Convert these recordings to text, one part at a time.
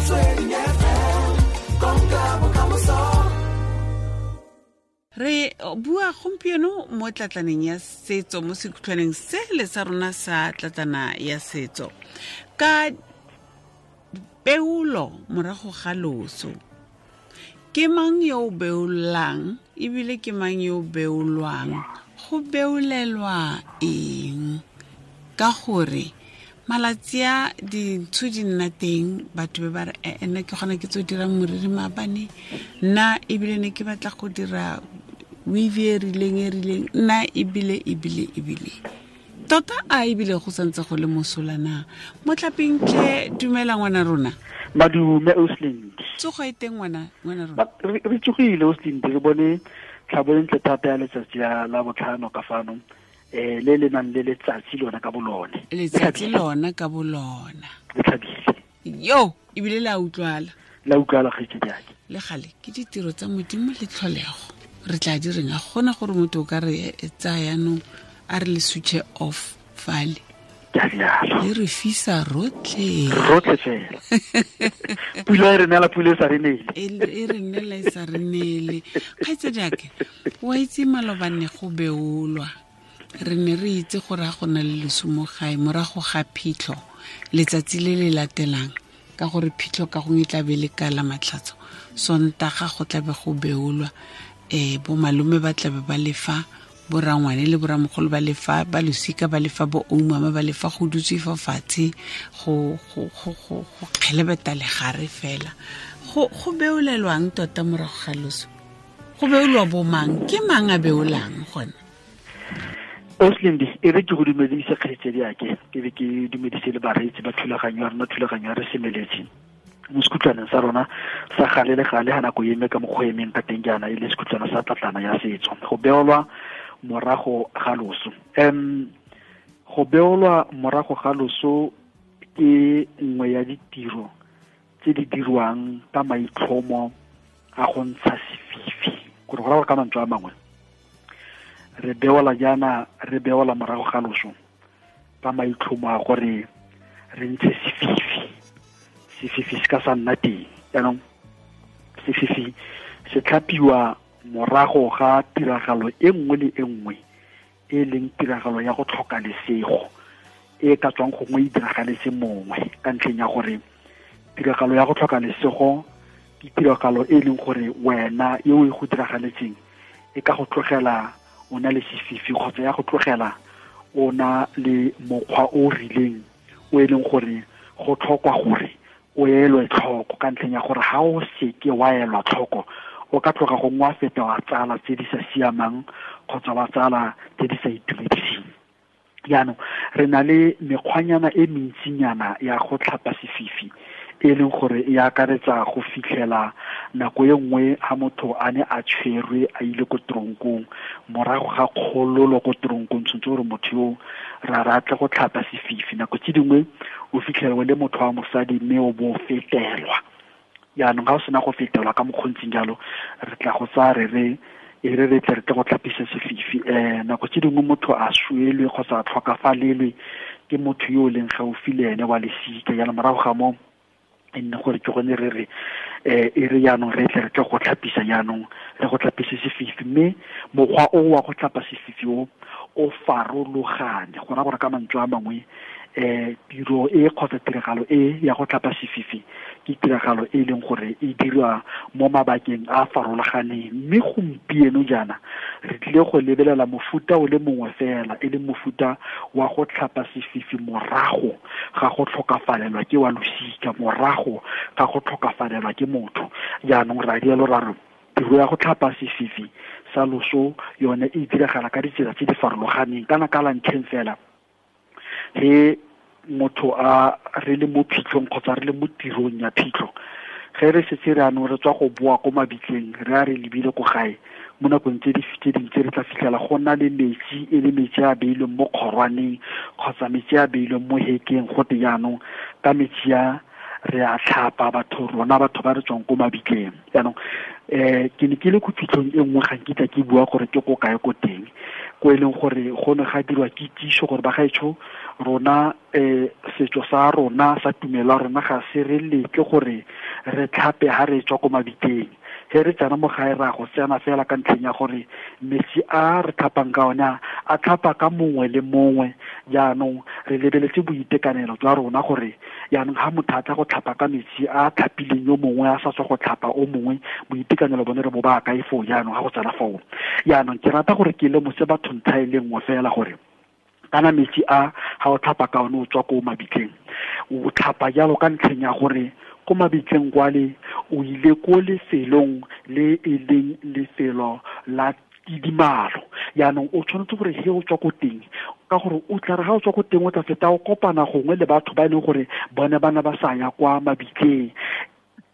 Motsweding FM, konka bokamoso. Re bua gompieno mo tlatlaneng ya setso, mo sekhutlhwaneng se le sa rona sa tlatlana ya setso, ka peolo morago ga loso. Ke mang yo o beolang ebile ke mang yo o beolwang? Go beolelwa eng? Ka gore malatsi a dintsho di nna teng, batho be ba re, nna ke gona ke tso dirang moriri maabane, nna ebile ne ke batla go dira weave e rileng e rileng, nna ebile ebile ebile. Tota a ebile go santse go le mosola na? Motlapeng tlhe, dumela ngwana rona. Madume Oslind. Tsogo e teng ngwana rona. Re tsogile Oslind, re bone tlhabo e ntle thata ya letsatsi la botlhano ka fano. Le le nang le letsatsi lona ka bolone. Letsatsi lona ka bolona. Le tlhabile. Yo, ebile la utlwala. La utlwala kgaitsedi yake. Le gale ke ditiro tsa Modimo le tlholego. Re tla di reng, a gona gore motho o ka re tsaya jaanong a re le switch off fale. Le re fisa rotlhe. Rotlhe fela. Pula e re neela, pula e sa re neele. E re neela e sa re neele. Kgaitsedi yake, wa itse malobane go beolwa. Re ne re itse gore ga go na le loso mo gae morago ga phitlho letsatsi le le latelang, ka gore phitlho ka gongwe e tla be le ka la matlhatso, Sontaga go tla be go beolwa. Bo malome ba tla be ba lefa, bo rangwane le bo ramogolo ba lefa, ba losika ba lefa, bo oumama ba lefa, go dutswe fa fatshe go kgelebeta legare fela. Go beolelwang tota morago ga loso? Go beolwa bo mang? Ke mang a beolang gone? Oslind, e re ke go dumedise kgaitsedi yake, ke be ke dumedise le bareetsi ba thulaganyo ya rona, thulaganyo ya re semeletse mo sekhutlwaneng sa rona sa gale le gale ga nako eme ka mokgwa emeng ka teng jaana, e le sekhutlwana sa tlatlana ya setso. Go beolwa morago ga loso. Go beolwa morago ga loso ke nngwe ya ditiro tse di dirwang ka maitlhomo a go ntsha sefifi. Gore go raya gore ka mantswe a mangwe, re beola jaana, re beola morago ga loso ka maitlhomo a gore re ntshe sefifi. Sefifi se ka sa nna teng. Jaanong sefifi se tlhapiwa morago ga tiragalo e nngwe le e nngwe e leng tiragalo ya go tlhoka lesego e ka tswang gongwe e diragaletse mongwe, ka ntlheng ya gore tiragalo ya go tlhoka lesego ke tiragalo e leng gore wena e o e go diragaletseng e ka go tlogela o na le sefifi, kgotsa ya go tlogela o na le mokgwa o rileng o e leng gore go tlhokwa gore o elwe tlhoko, ka ntlheng ya gore ha o seke wa elwa tlhoko o ka tloga gongwe wa feta wa tsala tse di sa siamang kgotsa wa tsala tse di sa itumediseng. Jaanong re na le mekgwanyana e mentsinyana ya go tlhapa sefifi, e leng gore e akaretsa go fitlhela nako e nngwe ha motho a ne a tshwerwe a ile ko tronkong, morago ga kgololo ko tronkong tshwanetse gore motho yo ra ratle go tlhapa sefifi. Nako tse dingwe o fitlhela o le motho wa mosadi mme o bo fetelwa. Jaanong ga o sena go fetelwa ka mokgontsing jalo, re tla go tsaya re re e re re tle re tle go tlhapisa sefifi. Nako tse dingwe motho a swelwe kgotsa a tlhokafalelwe ke motho yo o leng gaufi le ene wa lesika. Jaanong morago ga moo e nne gore ke gone re re, e re jaanong re tle re tle go tlhapisa jaanong, re go tlhapise sefifi. Mme mokgwa o wa go tlhapa sefifi o, o farologane. Go raya gore ka mantswe a mangwe, tiro e kgotsa tiragalo e ya go tlhapa sefifi ke tiragalo e leng gore e dirwa mo mabakeng a a farologaneng. Mme gompieno jaana re tlile go lebelela mofuta o le mongwe fela, e leng mofuta wa go tlhapa sefifi morago ga go tlhokafalelwa ke wa losika, morago ga go tlhokafalelwa ke motho. Jaanong ra rialo ra re tiro ya go tlhapa sefifi sa loso yone e diragala ka ditsela tse di farologaneng. Kana ka la ntlheng fela, he motho a re le mo phitlhong kgotsa re le mo tirong ya phitlho, ge re setse re anong re tswa go boa ko mabitleng, re a re lebile ko gae, mo nakong tse di tse dingwe tse re tla fitlhela go na le metsi, e le metsi a beilweng mo kgorwaneng kgotsa metsi a beilweng mo hekeng. Go te jaanong ka metsi a re a tlhapa batho, rona batho ba re tswang ko mabitleng. Jaanong Ke ne ke le ko phitlhong e nngwe, ga nkitla ke bua gore ke ko kae ko teng, ko e leng gore go ne ga dirwa kitsiso gore bagaetsho rona setso sa rona sa tumelo ya rona ga se re letle gore re tlhape ha re tswa ko mabitleng. He re tsena mo gae ra go tsena fela ka ntlheng ya gore metsi a re tlhapang ka one a tlhapa ka mongwe le mongwe. Jaanong re lebeletse boitekanelo jwa rona gore jaanong ha motho a tla go tlhapa ka metsi a tlhapileng yo mongwe a sa tswa go tlhapa o mongwe, boitekanelo bone re bo ba kae foo jaanong ha go tsena foo. Jaanong ke rata gore ke lemose batho ntlha e le nngwe fela gore kana metsi a ha o tlhapa ka one o tswa ko mabitleng, o tlhapa jalo ka ntlheng ya gore ko mabitleng kwale o ile ko lefelong le e leng lefelo la tidimalo. Jaanong o tshwanetse gore he o tswa ko teng, ka gore o tla re ga o tswa ko teng o tla feta o kopana gongwe le batho ba e leng gore bone ba ne ba sa ya kwa mabitleng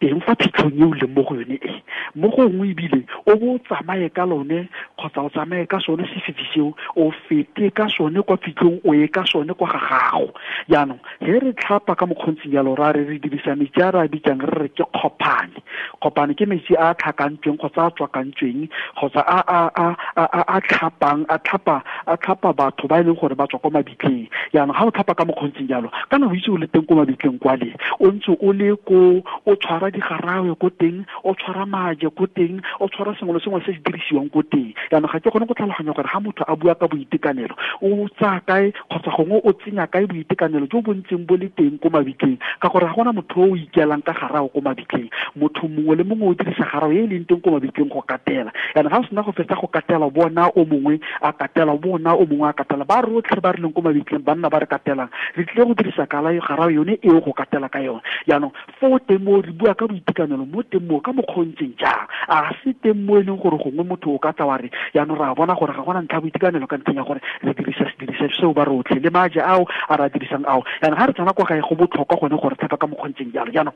teng fa phitlhong e o leng mo go yone e. Mo gongwe ebile o bo o tsamaye ka lone kgotsa o tsamaye ka sone sefifi seo, o fete ka sone kwa phitlhong, o ye ka sone kwa ga gago. Jaanong he re tlhapa ka mokgontsing jalo, ra re re dirisa metsi a re a bitsang re re ke kgopane. Kgopane ke metsi a a tlhakantsweng kgotsa a tswakantsweng kgotsa a tlhapang, a tlhapa batho ba e leng gore ba tswa kwa mabitleng. Jaanong ga o tlhapa ka mokgontsing jalo, kana o itse o le teng ko mabitleng kwale, o ntse o le ko o tshwara digarawe ko teng, o tshwara maje ko teng, o tshwara sengwe le sengwe se se dirisiwang ko teng. Jaanong ga ke kgone go tlhaloganya gore ga motho a bua ka boitekanelo o tsaya kae kgotsa gongwe o tsenya kae boitekanelo jo bo ntseng bo le teng ko mabitleng, ka gore ga gona motho o ikelang ka garawe ko mabitleng. Motho mongwe le mongwe o dirisa garawe e e leng teng ko mabitleng go katela. Jaanong ga o sena go fetsa go katela, bona o mongwe a katela, bona o mongwe a katela, ba rotlhe ba re leng ko mabitleng banna ba re katelang, re tlile go dirisa garawe yone eo go katela ka yone. Jaanong fo teng mo re bua ka boitekanelo mo teng mo ka mokgontseng jang, a se teng mo e leng gore gongwe motho o ka tla wa re jaanong ra bona gore ga gona ntlha boitekanelo ka ntlheng ya gore re dirisa sediriswa seo ba rotlhe le maje ao a re a dirisang ao. Jaanong ga re tsena kwa gae go botlhokwa gone gore tlhapa ka mokgontseng jalo. Jaanong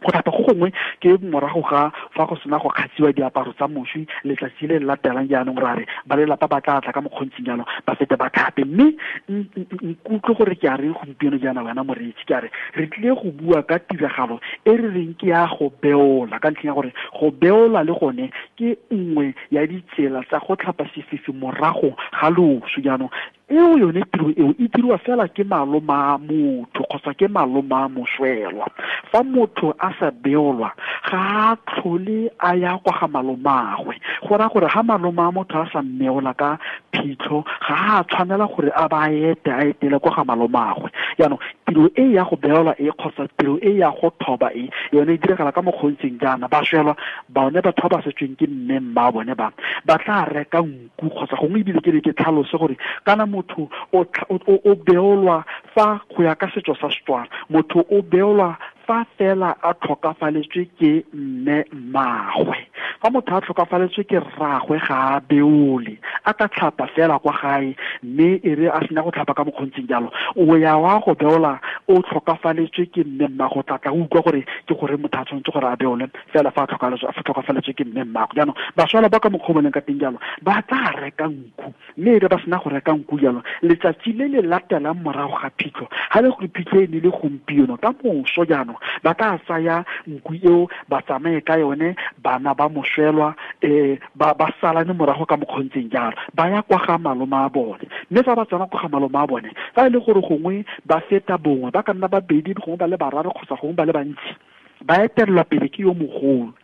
go tlhapa go gongwe ke morago ga fa go sena go kgatsiwa diaparo tsa moswi letsatsi le le latelang. Jaanong ra re ba lelapa ba tla tla ka mokgontsing jalo ba fete ba tlhape. Mme nkutlwe gore ke a reng gompieno jaana wena moreetsi, ke a re re tlile go bua ka tiragalo e re reng ke ya go beola, ka ntlheng ya gore go beola le gone ke nngwe ya ditsela tsa go tlhapa sefifi morago ga loso. Jaanong eo yone tiro eo e dirwa fela ke maloma a motho kgotsa ke maloma a moswelwa. Fa motho a sa beolwa ga a tlhole a ya kwa ga malomagwe, go raya gore ga maloma a motho a sa mmeola ka phitlho ga a tshwanela gore a ba ete a etele kwa ga malomagwe. Jaanong tiro e ya go beolwa e kgotsa tiro e ya go thoba e yone e diragala ka mokgontseng jaana. Baswelwa bone batho ba ba setsweng ke mme mma bone ba ba tla reka nku kgotsa gongwe ebile ke ne ke tlhalose gore kana motho o beolwa fa go ya ka setso sa Setswana, motho o beolwa fa fela a tlhokafaletswe ke mme mmagwe. Fa motho a tlhokafaletswe ke rragwe ga a beole, a ka tlhapa fela kwa gae, mme e re a sena go tlhapa ka mokgontseng jalo o ya wa go beola o tlhokafaletswe ke mme mmagwe. O tla utlwa gore ke gore motho a tshwanetse gore a beole fela fa a tlhokafaletswe ke mme mmagwe. Jaanong baswala ba ka mokgwa o boneng ka teng jalo ba tla reka nku, mme e re ba sena go reka nku jalo letsatsi le le latelang morago ga phitlho, ga le gore phitlho e ne le gompieno ka moso jaanong ba tla tsaya nku eo ba tsamaye ka yone, bana ba moswelwa ba salane morago ka mokgontseng jalo ba ya kwa ga maloma a bone. Mme fa ba tsena kwa ga maloma a bone, fa e le gore gongwe ba feta bongwe, ba ka nna babedi gongwe ba le bararo kgotsa gongwe ba le bantsi, ba etelelwa pele ke yo mogolo.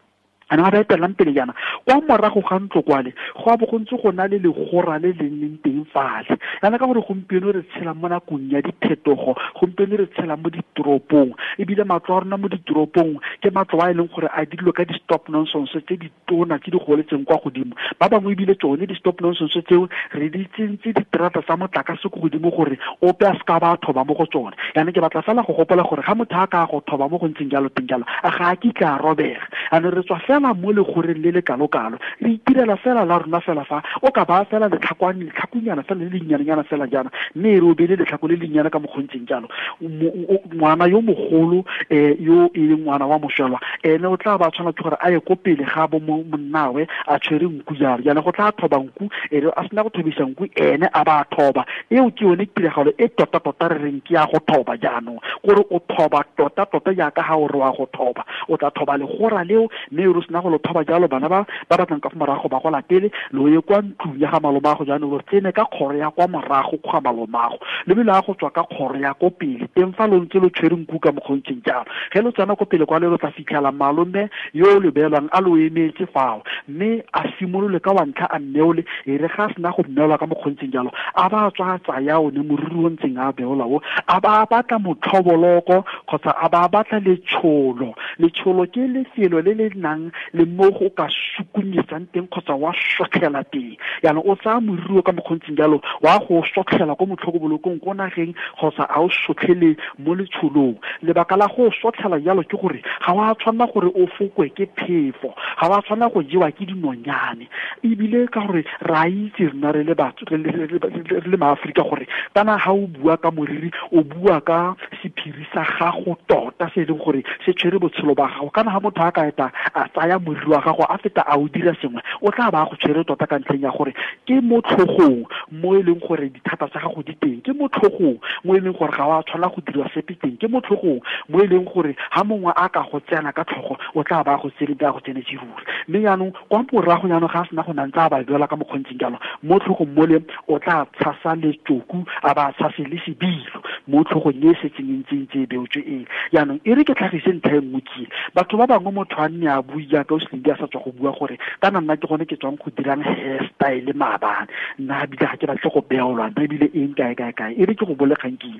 Ana ba etellang pele jaana kwa morago ga ntlo kwale go a bo go ntse go na le legora le le leng teng fale. Yana ka gore gompieno re tshela mo nakong ya diphetogo, gompieno re tshela mo ditoropong, ebile matlo a rona mo ditoropong ke matlo a e leng gore a dirilwe ka di-stop nonsense tse di tona tse di goletseng kwa godimo. Ba bangwe ebile tsone di-stop nonsense tseo re di tsentse diterata tsa motlakase ko godimo gore ope a seka ba thoba mo go tsone. Yana ke batla fela go gopola gore ga motho a ka go thoba mo go ntseng jalo teng jalo a ga a kitla a robega. Ano re tswa fela mo legoreng le le kalo-kalo, re itirela fela la rona fela fa o ka ba fela letlhakunyana fela le lennyane fela jaana, mme e re o beile letlhako le lennyane ka mokgontseng jalo. Ngwana yo mogolo yo e leng ngwana wa moswelwa ene o tla ba tshwana ke gore a ye ko pele ga bo monnawe a tshwere nku jalo. Jaanong go tla thoba nku, e re a sena go thobisa nku ene a ba thoba. Eo ke yone tiragalo e tota-tota re reng ke ya go thoba jaanong, gore o thoba tota-tota jaaka ga o re wa go thoba, o tla thoba legora leo, mme o sena go lo thoba jalo, bana ba ba batlang ka fa morago ba go latele, lo ye kwa ntlong ya ga malomago jaanong, lo tsene ka kgoro ya kwa morago ga malomago, le bile a go tswa ka kgoro ya ko pele teng fa lo ntse lo tshwere nku ka mokgontseng jalo. Ge lo tsena ko pele kwa le lo tla fitlhela malome yo lo beelwang a lo emetse fao, mme a simolole ka wa ntlha a mmeole. E re ga a sena go mmeolwa ka mokgontseng jalo, a ba tswa tsaya one moriri o ntseng a beola o, a ba batla motlhoboloko kgotsa a ba batla letsholo. Letsholo ke lefelo le le nang le mo go ka sukunyetsang teng kgotsa wa sotlhela teng. Jaanong o tsaya moriri o ka mokgontseng jalo, wa go sotlhela ko motlhokobolokong ko nageng kgotsa a o sotlhele mo letsholong. Lebaka la go sotlhela jalo ke gore ga wa tshwanela gore o fokwe ke phefo, ga wa tshwanela go jewa ke dinonyane, ebile ka gore re a itse rena re le batho re le maAforika gore kana ga o bua ka moriri o bua ka sephiri sa gago tota se e leng gore se tshwere botshelo ba gago. Kana ga motho a ka eta a tsaya moriri wa gago a feta a o dira sengwe, o tla ba go tshwere tota ka ntlheng ya gore ke mo tlhogong mo e leng gore dithata tsa gago di teng, ke mo tlhogong mo e leng gore ga wa tshwanela go dira sepe teng, ke mo tlhogong mo e leng gore ga mongwe a ka go tsena ka tlhogo o tla ba go tsene ba go tsenetse ruri. Mme jaanong kwa morago jaanong ga a sena go nantse a ba beola ka mokgontseng jalo, mo tlhogong mole o tla tshasa letsoku a ba tshase le sebilo mo tlhogong e setseng e ntse e beotswe e. Jaanong e re ke tlhagise ntlha e nngwe ke, batho ba bangwe motho a nne a bue jaaka o Slindi a sa tswa go bua gore kana nna ke gone ke tswang go dirang hairstyle maabane, nna ebile ga ke batle go beolwa, nna ebile eng kae kae kae. E re ke go bolegang ke,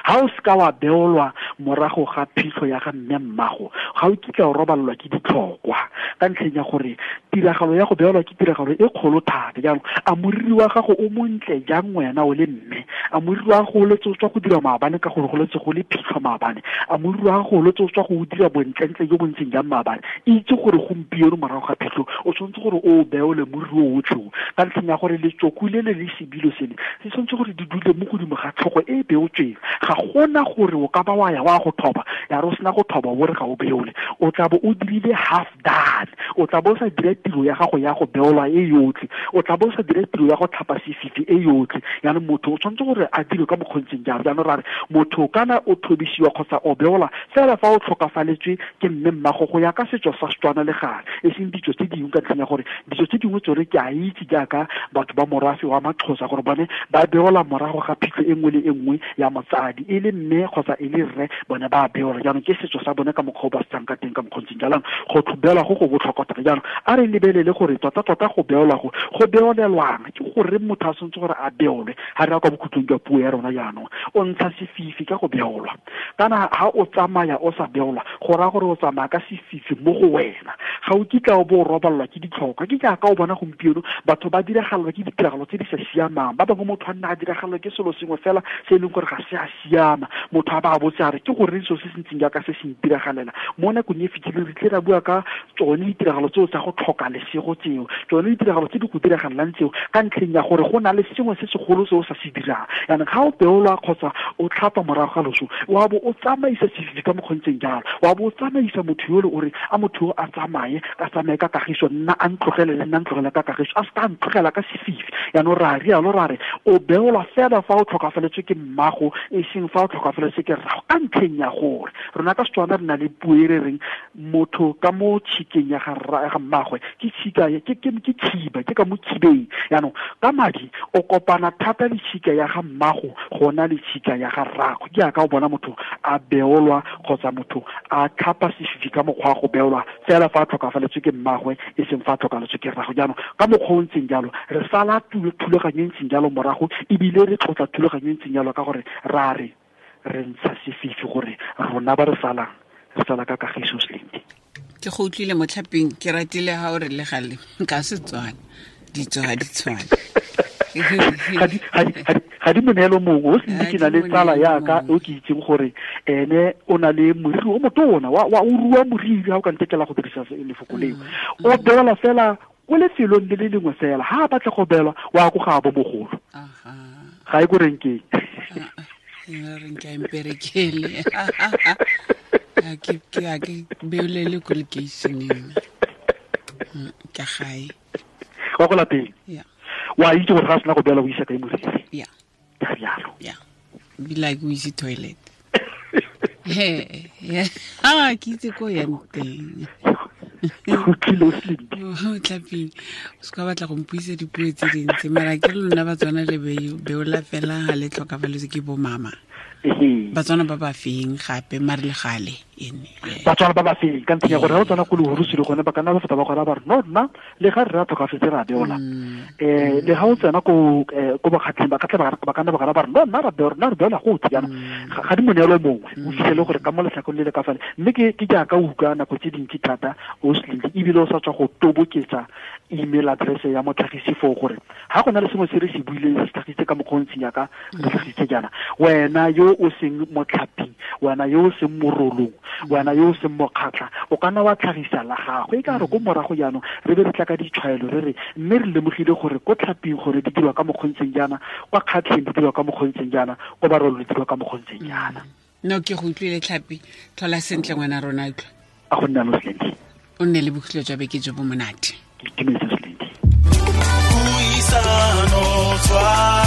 ha o seka wa beolwa morago ga phitlho ya ga mme mmago, ga o kitla o robalelwa ke ditlhokwa, ka ntlheng ya gore tiragalo ya go beolwa ke tiragalo e kgolo thata. Jaanong a moriri wa gago o montle jang wena o le mme, a moriri wa gago o letse o tswa go dira maabane ka gore go letse go le phitlho maabane, a moriri wa gago o letse o tswa go dira bontlentle jo bo ntseng jang maabane, itse gore gompieno morago ga phitlho o tshwanetse gore o beole moriri o otlhe, ka ntlheng ya gore letsoku le le le sebilo sele se tshwanetse gore di dule mo godimo ga tlhogo e e beotsweng. Ga gona gore o ka ba wa ya wa go thoba, ya re o sena go thoba o re ga o beole, o tla bo o dirile half done, o tla bo o sa dira tiro ya gago ya go beolwa e yotlhe, o tla bo o sa dira tiro ya go tlhapa sefifi e yotlhe. Jaanong motho o tshwanetse gore a dire ka mokgontseng jalo. Jaanong ra re motho kana o thobisiwa kgotsa o beola fela fa o tlhokafaletswe ke mme mmago go ya ka setso sa Setswana le gale, e seng ditso tse dingwe, ka ntlheng ya gore ditso tse dingwe tsone ke a itse jaaka batho ba morafe wa Maxhosa gore bone ba beola morago ga phitlho e nngwe le e nngwe ya motsadi, e le mme kgotsa e le rre, bone ba beola. Jaanong ke setso sa bone ka mokgwa o ba setsang ka teng ka mokgontseng jaanong go beola go go botlhokwa thata. Jaanong a re lebelele gore tota-tota go beola go beolelwang ke gore motho a tshwanetse gore a beolwe. Ga re ya kwa bokhutlong jwa puo ya rona jaanong, o ntsha sefifi ka go beolwa. Kana ha o tsamaya o sa beolwa, go raya gore o tsamaya ka sefifi mo go wena, ga o kitla o bo o robalelwa ke ditlhokwa. Ke jaaka o bona gompieno batho ba diragalelwa ke ditiragalo tse di sa siamang, ba bangwe motho a nna a diragalelwa ke selo sengwe fela se e leng gore ga se a siama, motho a ba a botse a re ke goreng selo se se ntseng jaaka se se ntiragalela. Mo nakong e fetileng re tle ra bua ka tsone ditiragalo tseo tsa go tlhoka lesego tseo, tsone ditiragalo tse di go diragalelang tseo, ka ntlheng ya gore go na le sengwe se segolo se o sa se dirang. Jaanong ga o beolwa kgotsa o tlhapa morago ga loso, wa bo o tsamaisa sefifi ka mokgontseng jalo, wa bo o tsamaisa motho yole o re a motho yo a tsamaye, a tsamaye ka kagiso, nna a ntlogele le nna ntlogele ka kagiso, a seka a ntlogela ka sefifi. Jaanong ra rialo ra re o beolwa fela fa o tlhokafaletswe ke mmago, e seng fa o tlhokafaletswe ke rrago, ka ntlheng ya gore rona ka Setswana re na le puo e re reng motho ka mo tshikeng ya ga mmagwe ke tshika ke khiba, ke ka mo khibeng. Jaanong ka madi o kopana thata le tshika ya ga mmago gona le tshika ya ga rrago. Ke jaaka o bona motho a beolwa kgotsa motho a tlhapa sefifi ka mokgwa wa go beolwa fela fa a tlhokafaletswe ke mmagwe, e seng fa a tlhokafaletswe ke rrago. Jaanong ka mokgwa o ntseng jalo re sala thulaganyo e ntseng jalo morago, ebile re tlotla thulaganyo e ntseng jalo ka gore ra re re ntsha sefifi gore rona ba re salang re sala ka kagiso. Slindi, ke go utlwile motlhapeng, ke ratile ha o re le gale ka Setswana ditso ga di tshwane. Ga di moneelo mongwe o Slindi. Ke na le tsala yaka o ke itseng gore ene o na le moriri o motona wa o rua moriri, ha o ka ntekela go dirisa lefoko leo, o beola fela ko lefelong le le lengwe fela, ha a batla go beolwa wa ko ga bo mogolo, ga e ko renkeng. Renke a mperekele, a ke beolele ko lekeišeneng ka gae wa go lapeng. Wa itse gore ga a sena go beola o isa kae moriri. Ka rialo. Be like o ise toilet. Ke itse ko yang teng. Utlwile o Slindi. Tlhaping, o se ka batla go mpuisa dipuo tse dintsi, mara ke lona Batswana le beola fela ga le tlhokafaletswe ke bo mama. Batswana ba ba feng gape mare le gale ene. Batswana ba ba feng ka ntlheng ya gore ga o tsena ko lehurusile gone ba ka nna ba feta ba gora ba re no nna le ga rre a tlhokafetse ra beola. Le ga o tsena ko bakgatlheng ba ka ba ka nna ba gora ba re no nna ra beola, nna re beola gotlhe jaanong. Ga di moneelo mongwe o fitlhele gore ka mo letlhakong le le ka fale, mme ke jaaka o utlwa nako tse dintsi thata o Slindi, ebile o sa tswa go toboketsa email address ya motlhagisi foo gore ga go na le sengwe se re se buileng se tlhagisitse ka mokgwa o ntseng jaaka re tlhagisitse jaana, wena yo o seng motlhaping, wena yo o seng morolong, wena yo o seng mokgatlha, o ka nna wa tlhagisa la gago. E ka re ko morago jaanong re be re tla ka ditshwaelo re re mme re lemogile gore ko tlhaping gore di dirwa ka mokgwa o ntseng jaana, kwa kgatlheng di dirwa ka mokgwa o ntseng jaana, ko barolong di dirwa ka mokgwa o ntseng jaana. No, ke go utlwile Tlhapi, tlhola sentle ngwana rona, utlwa. A go nna lo Slindi. O nne le bokhutlo jwa beke jo bo monate. Ke itumetse Slindi. Puisano tshwara.